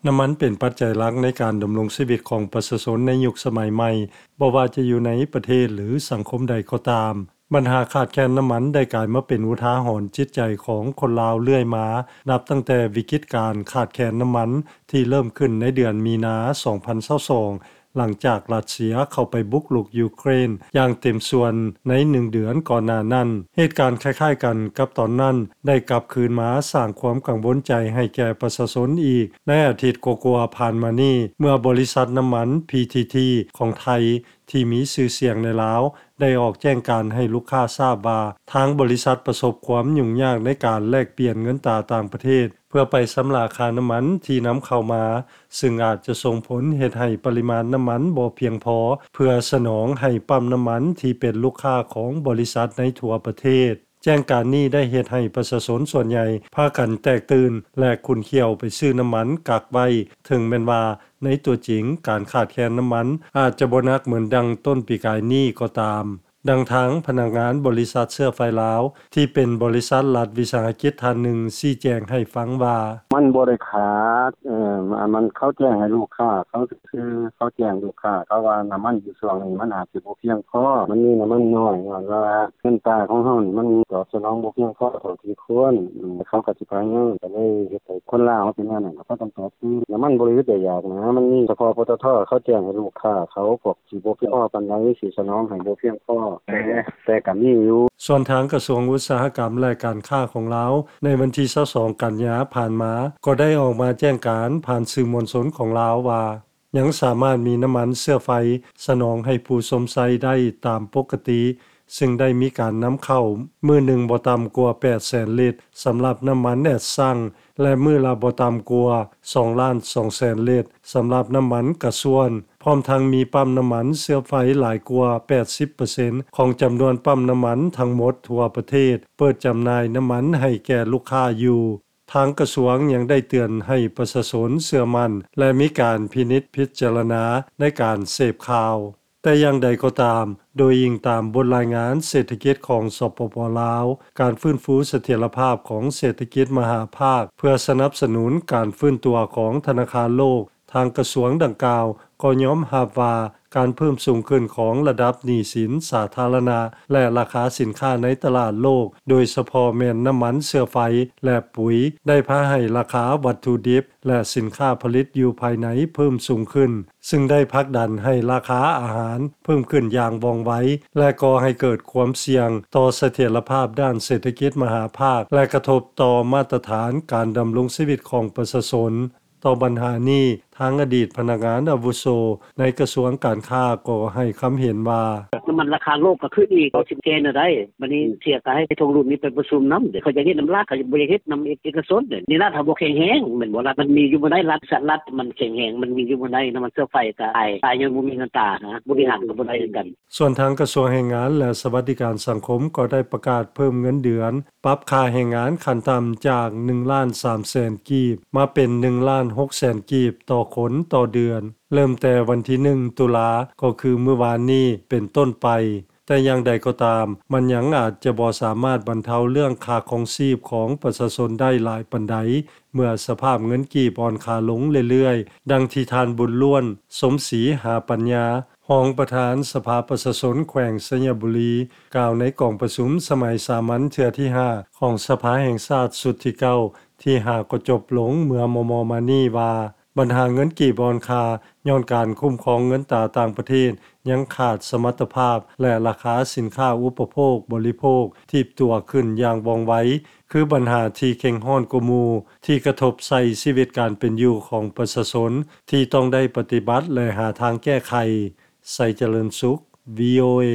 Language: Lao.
ນ້ຳມັນເປັນປັດໄຈຫຼັກໃນການດຳລົງຊີວິດຂອງປະຊາຊົນໃນຍຸກສະໄໝໃໝ່, ບໍ່ວ່າຈະຢູ່ໃນປະເທດ ຫຼື ສັງຄົມໃດກໍຕາມ. ບັນຫາຂາດແຄນນ້ຳມັນໄດ້ກາຍມາເປັນອຸທາຫອນຈິດໃຈຂອງຄົນລາວເລື້ອຍມາ, ນັບຕັ້ງແຕ່ວິກິດການຂາດແຄນນ້ຳມັນທີ່ເລີ່ມຂຶ້ນໃນເດືອນມີນາ ສອງພັນຊາວສອງ ຫຼັງຈາກຣັດເຊຍເຂົ້າໄປບຸກລຸກຢູເຄຣນຢ່າງເຕັມສ່ວນໃນໜຶ່ງເດືອນກ່ອນໜ້ານັ້ນ. ເຫດການຄ້າຍໆກັນກັບຕອນນັ້ນໄດ້ກັບຄືນມາສ້າງຄວາມກັງວົນໃຈໃຫ້ແກ່ປະຊາຊົນອີກ ໃນອາທິດກວ່າໆຜ່ານມານີ້, ເມື່ອບໍລິສັດນ້ຳມັນ ພີທີທີ ຂອງໄທ ທີ່ມີຊື່ສຽງໃນລາວ ໄດ້ອອກແຈ້ງການໃຫ້ລູກຄ້າຊາບວ່າ ທາງບໍລິສັດປະສົບຄວາມຫຍຸ້ງຍາກໃນການແລກປ່ຽນເງິນຕາຕ່າງປະເທດ ເພື່ອໄປຊຳລະຄ່ານ້ຳມັນທີ່ນຳເຂົ້າມາ, ຊຶ່ງອາດຈະສົ່ງຜົນເຮັດໃຫ້ປະລິມານນ້ຳມັນບໍ່ພຽງພໍເພື່ອສະໜອງໃຫ້ປ້ຳນ້ຳມັນທີ່ເປັນລູກຄ້າຂອງບໍລິສັດໃນທົ່ວປະເທດ. ແຈ້ງການນີ້ໄດ້ເຮັດໃຫ້ປະຊາຊົນສ່ວນໃຫຍ່ພາກັນແຕກຕື່ນ ແລະ ຂຸ້ນຂ້ຽວໄປຊື້ນ້ຳມັນກັກໄວ້, ເຖິງແມ່ນວ່າໃນຕົວຈິງການຂາດແຄນນ້ຳມັນອາດຈະບໍ່ໜັກເໝືອນດັ່ງຕົ້ນປີກາຍນີ້ກໍຕາມ. ດັ່ງທາງພະນັກງານບໍລິສັດເຊື້ອໄຟລາວ ທີ່ເປັນບໍລິສັດລັດວິສາຫະກິດທ່ານໜຶ່ງຊີ້ແຈງໃຫ້ຟັງວ່າ ມັນບໍ່ໄດ້ຂາດ ເອີ ມັນ ເຂົາແຈ້ງໃຫ້ລູກຄ້າເຂົາຊື່ໆ ເຂົາແຈ້ງລູກຄ້າເຂົາວ່ານ້ຳມັນຢູ່ຊ່ວງນີ້ມັນອາດຊິບໍ່ພຽງພໍ ມັນມີນ້ຳມັນໜ້ອຍ ຍ້ອນວ່າເງິນຕາຂອງເຮົານີ້ມັນຕອບສະໜອງບໍ່ພຽງພໍເທົ່າທີ່ຄວນ ເຂົາກໍຊິພະຍາຍາມ ກໍເລີຍເຮັດໃຫ້ຄົນລາວເຮົາເປັນແນວນັ້ນ ກໍພາກັນຕອບຕື່ມ ນ້ຳມັນບໍ່ໄດ້ອຶດໄດ້ຢາກນະ ມັນມີສະເພາະ ປຕທ ເຂົາແຈ້ງໃຫ້ລູກຄ້າເຂົາ ພວກ ຊິບໍ່ພຽງພໍປານໃດ ຊິສະໜອງໃຫ້ບໍ່ພຽງພໍ ແຕ່ ແຕ່ກໍມີຢູ່. ສ່ວນທາງກະຊວງອຸດສາຫະກຳ ແລະ ການຄ້າຂອງລາວ ໃນວັນທີຊາວສອງ ກັນຍາຜ່ານມາ ກໍໄດ້ອອກມາແຈ້ງການຜ່ານສື່ມວນຊົນຂອງລາວວ່າ ຍັງສາມາດມີນ້ຳມັນເຊື້ອໄຟສະໜອງໃຫ້ຜູ້ຊົມໃຊ້ໄດ້ຕາມປົກກະຕິ, ຊຶ່ງໄດ້ມີການນຳເຂົ້າມື້ໜຶ່ງບໍ່ຕ່ຳກວ່າແປດແສນລິດ ສຳລັບນ້ຳມັນແອັດຊັງ ແລະ ມື້ລະບໍ່ຕ່ຳກວ່າສອງລ້ານສອງແສນລິດ ສຳລັບນ້ຳມັນກະຊວນ, ພ້ອມທັງມີປ້ຳນ້ຳມັນເຊື້ອໄຟຫຼາຍກວ່າແປດສິບເປີເຊັນຂອງຈຳນວນປ້ຳນ້ຳມັນທັງໝົດທົ່ວປະເທດ ເປີດຈຳໜ່າຍນ້ຳມັນໃຫ້ແກ່ລູກຄ້າຢູ່. ທາງກະຊວງຍັງໄດ້ເຕືອນໃຫ້ປະຊາຊົນເຊື່ອໝັ້ນ ແລະ ມີການພິນິດພິຈາລະນາໃນການເສບຂ່າວ. ແຕ່ຢ່າງໃດກໍຕາມ, ໂດຍອີງຕາມບົດລາຍງານເສດຖະກິດຂອງ ສປປ ລາວ, ການຟື້ນຟູສະຖຽນລະພາບຂອງເສດຖະກິດມະຫາພາກ ເພື່ອສະໜັບສະໜູນການຟື້ນຕົວຂອງທະນາຄານໂລກ, ທາງກະຊວງດັ່ງກ່າວກໍຍອມຮັບວ່າ ການເພີ່ມສູງຂຶ້ນຂອງລະດັບໜີ້ສິນສາທາລະນະ ແລະ ລາຄາສິນຄ້າໃນຕະຫຼາດໂລກ, ໂດຍສະເພາະແມ່ນນ້ຳມັນເຊື້ອໄຟ ແລະ ປຸ໋ຍ, ໄດ້ພາໃຫ້ລາຄາວັດຖຸດິບ ແລະ ສິນຄ້າຜະລິດຢູ່ພາຍໃນເພີ່ມສູງຂຶ້ນ, ຊຶ່ງໄດ້ຜັກດັນໃຫ້ລາຄາອາຫານເພີ່ມຂຶ້ນຢ່າງວ່ອງໄວ ແລະ ກໍ່ໃຫ້ເກີດຄວາມສ່ຽງຕໍ່ສະຖຽນລະພາບດ້ານເສດຖະກິດມະຫາພາກ ແລະ ກະທົບຕໍ່ມາດຕະຖານການດຳລົງຊີວິດຂອງປະຊາຊົນ. ຕໍ່ບັນຫານີ້, ທາງອະດີດພະນັກງານອາວຸໂສໃນກະຊວງການຄ້າກໍໃຫ້ຄຳເຫັນວ່າ ນ້ຳມັນລາຄາໂລກກໍຂຶ້ນອີກ ເຮົາຊິແກ້ແນວໃດ? ບັດນີ້ເສຍກໍໃຫ້ທວງລຸນນີ້ໄປປະຊຸມນຳ ເຂົາຢາກເຮັດນຳລັດ ເຂົາບໍ່ຢາກເຮັດນຳເອກະຊົນເດ. ນີ້ລັດເຮົາບໍ່ແຂງແຮງແມ່ນບໍ່? ລັດມັນມີຢູ່ບໍ່ໄດ້ ລັດ ລັດມັນແຂງແຮງ ມັນມີຢູ່ບໍ່ໄດ້ ນ້ຳມັນເຊື້ອໄຟກໍອາຍ ອາຍຍ້ອນບໍ່ມີເງິນຕານະ ບໍລິຫານກໍບໍ່ໄດ້ຄືກັນ. ສ່ວນທາງກະຊວງແຮງງານ ແລະ ສະຫວັດດີການສັງຄົມກໍໄດ້ປະກາດເພີ່ມເງິນເດືອນ ປັບຄ່າແຮງງານຂັ້ນຕ່ຳຈາກໜຶ່ງລ້ານສາມແສນກີບ ມາເປັນໜຶ່ງລ້ານຫົກແສນກີບຕໍ່ຄົນຕໍ່ເດືອນ ເລີ່ມແຕ່ວັນທີໜຶ່ງ ຕຸລາ ກໍຄືມື້ວານນີ້ເປັນຕົ້ນໄປ. ແຕ່ຢ່າງໃດກໍຕາມ, ມັນຍັງອາດຈະບໍ່ສາມາດບັນເທົາເລື່ອງຄ່າຄອງຊີບຂອງປະຊາຊົນໄດ້ຫຼາຍປານໃດ ເມື່ອສະພາບເງິນກີບອ່ອນຄ່າລົງເລື້ອຍໆ, ດັ່ງທີ່ທ່ານ ບຸນລ້ວນ ສົມສີຫາປັນຍາ, ຮອງປະທານສະພາປະຊາຊົນແຂວງໄຊຍະບູລີ ກ່າວໃນກອງປະຊຸມສະໄໝສາມັນເທື່ອທີຫ້າ ຂອງສະພາແຫ່ງຊາດຊຸດທີເກົ້າ ທີ່ຫາກໍຈົບລົງເມື່ອມໍ່ໆມານີ້ວ່າ ບັນຫາເງິນກີບອ່ອນຄ່າ ຍ້ອນການຄຸ້ມຄອງເງິນຕາຕ່າງປະເທດຍັງຂາດສະມັດຕະພາບ ແລະ ລາຄາສິນຄ້າອຸປະໂພກບໍລິໂພກຖີບຕົວຂຶ້ນຢ່າງວ່ອງໄວ ຄືບັນຫາທີ່ເຄັ່ງຮ້ອນກວ່າໝູ່ ທີ່ກະທົບໃສ່ຊີວິດການເປັນຢູ່ຂອງປະຊາຊົນ ທີ່ຕ້ອງໄດ້ປະຕິບັດ ແລະ ຫາທາງແກ້ໄຂ. ໄຊຈະເລີນສຸກ ວີໂອເອ.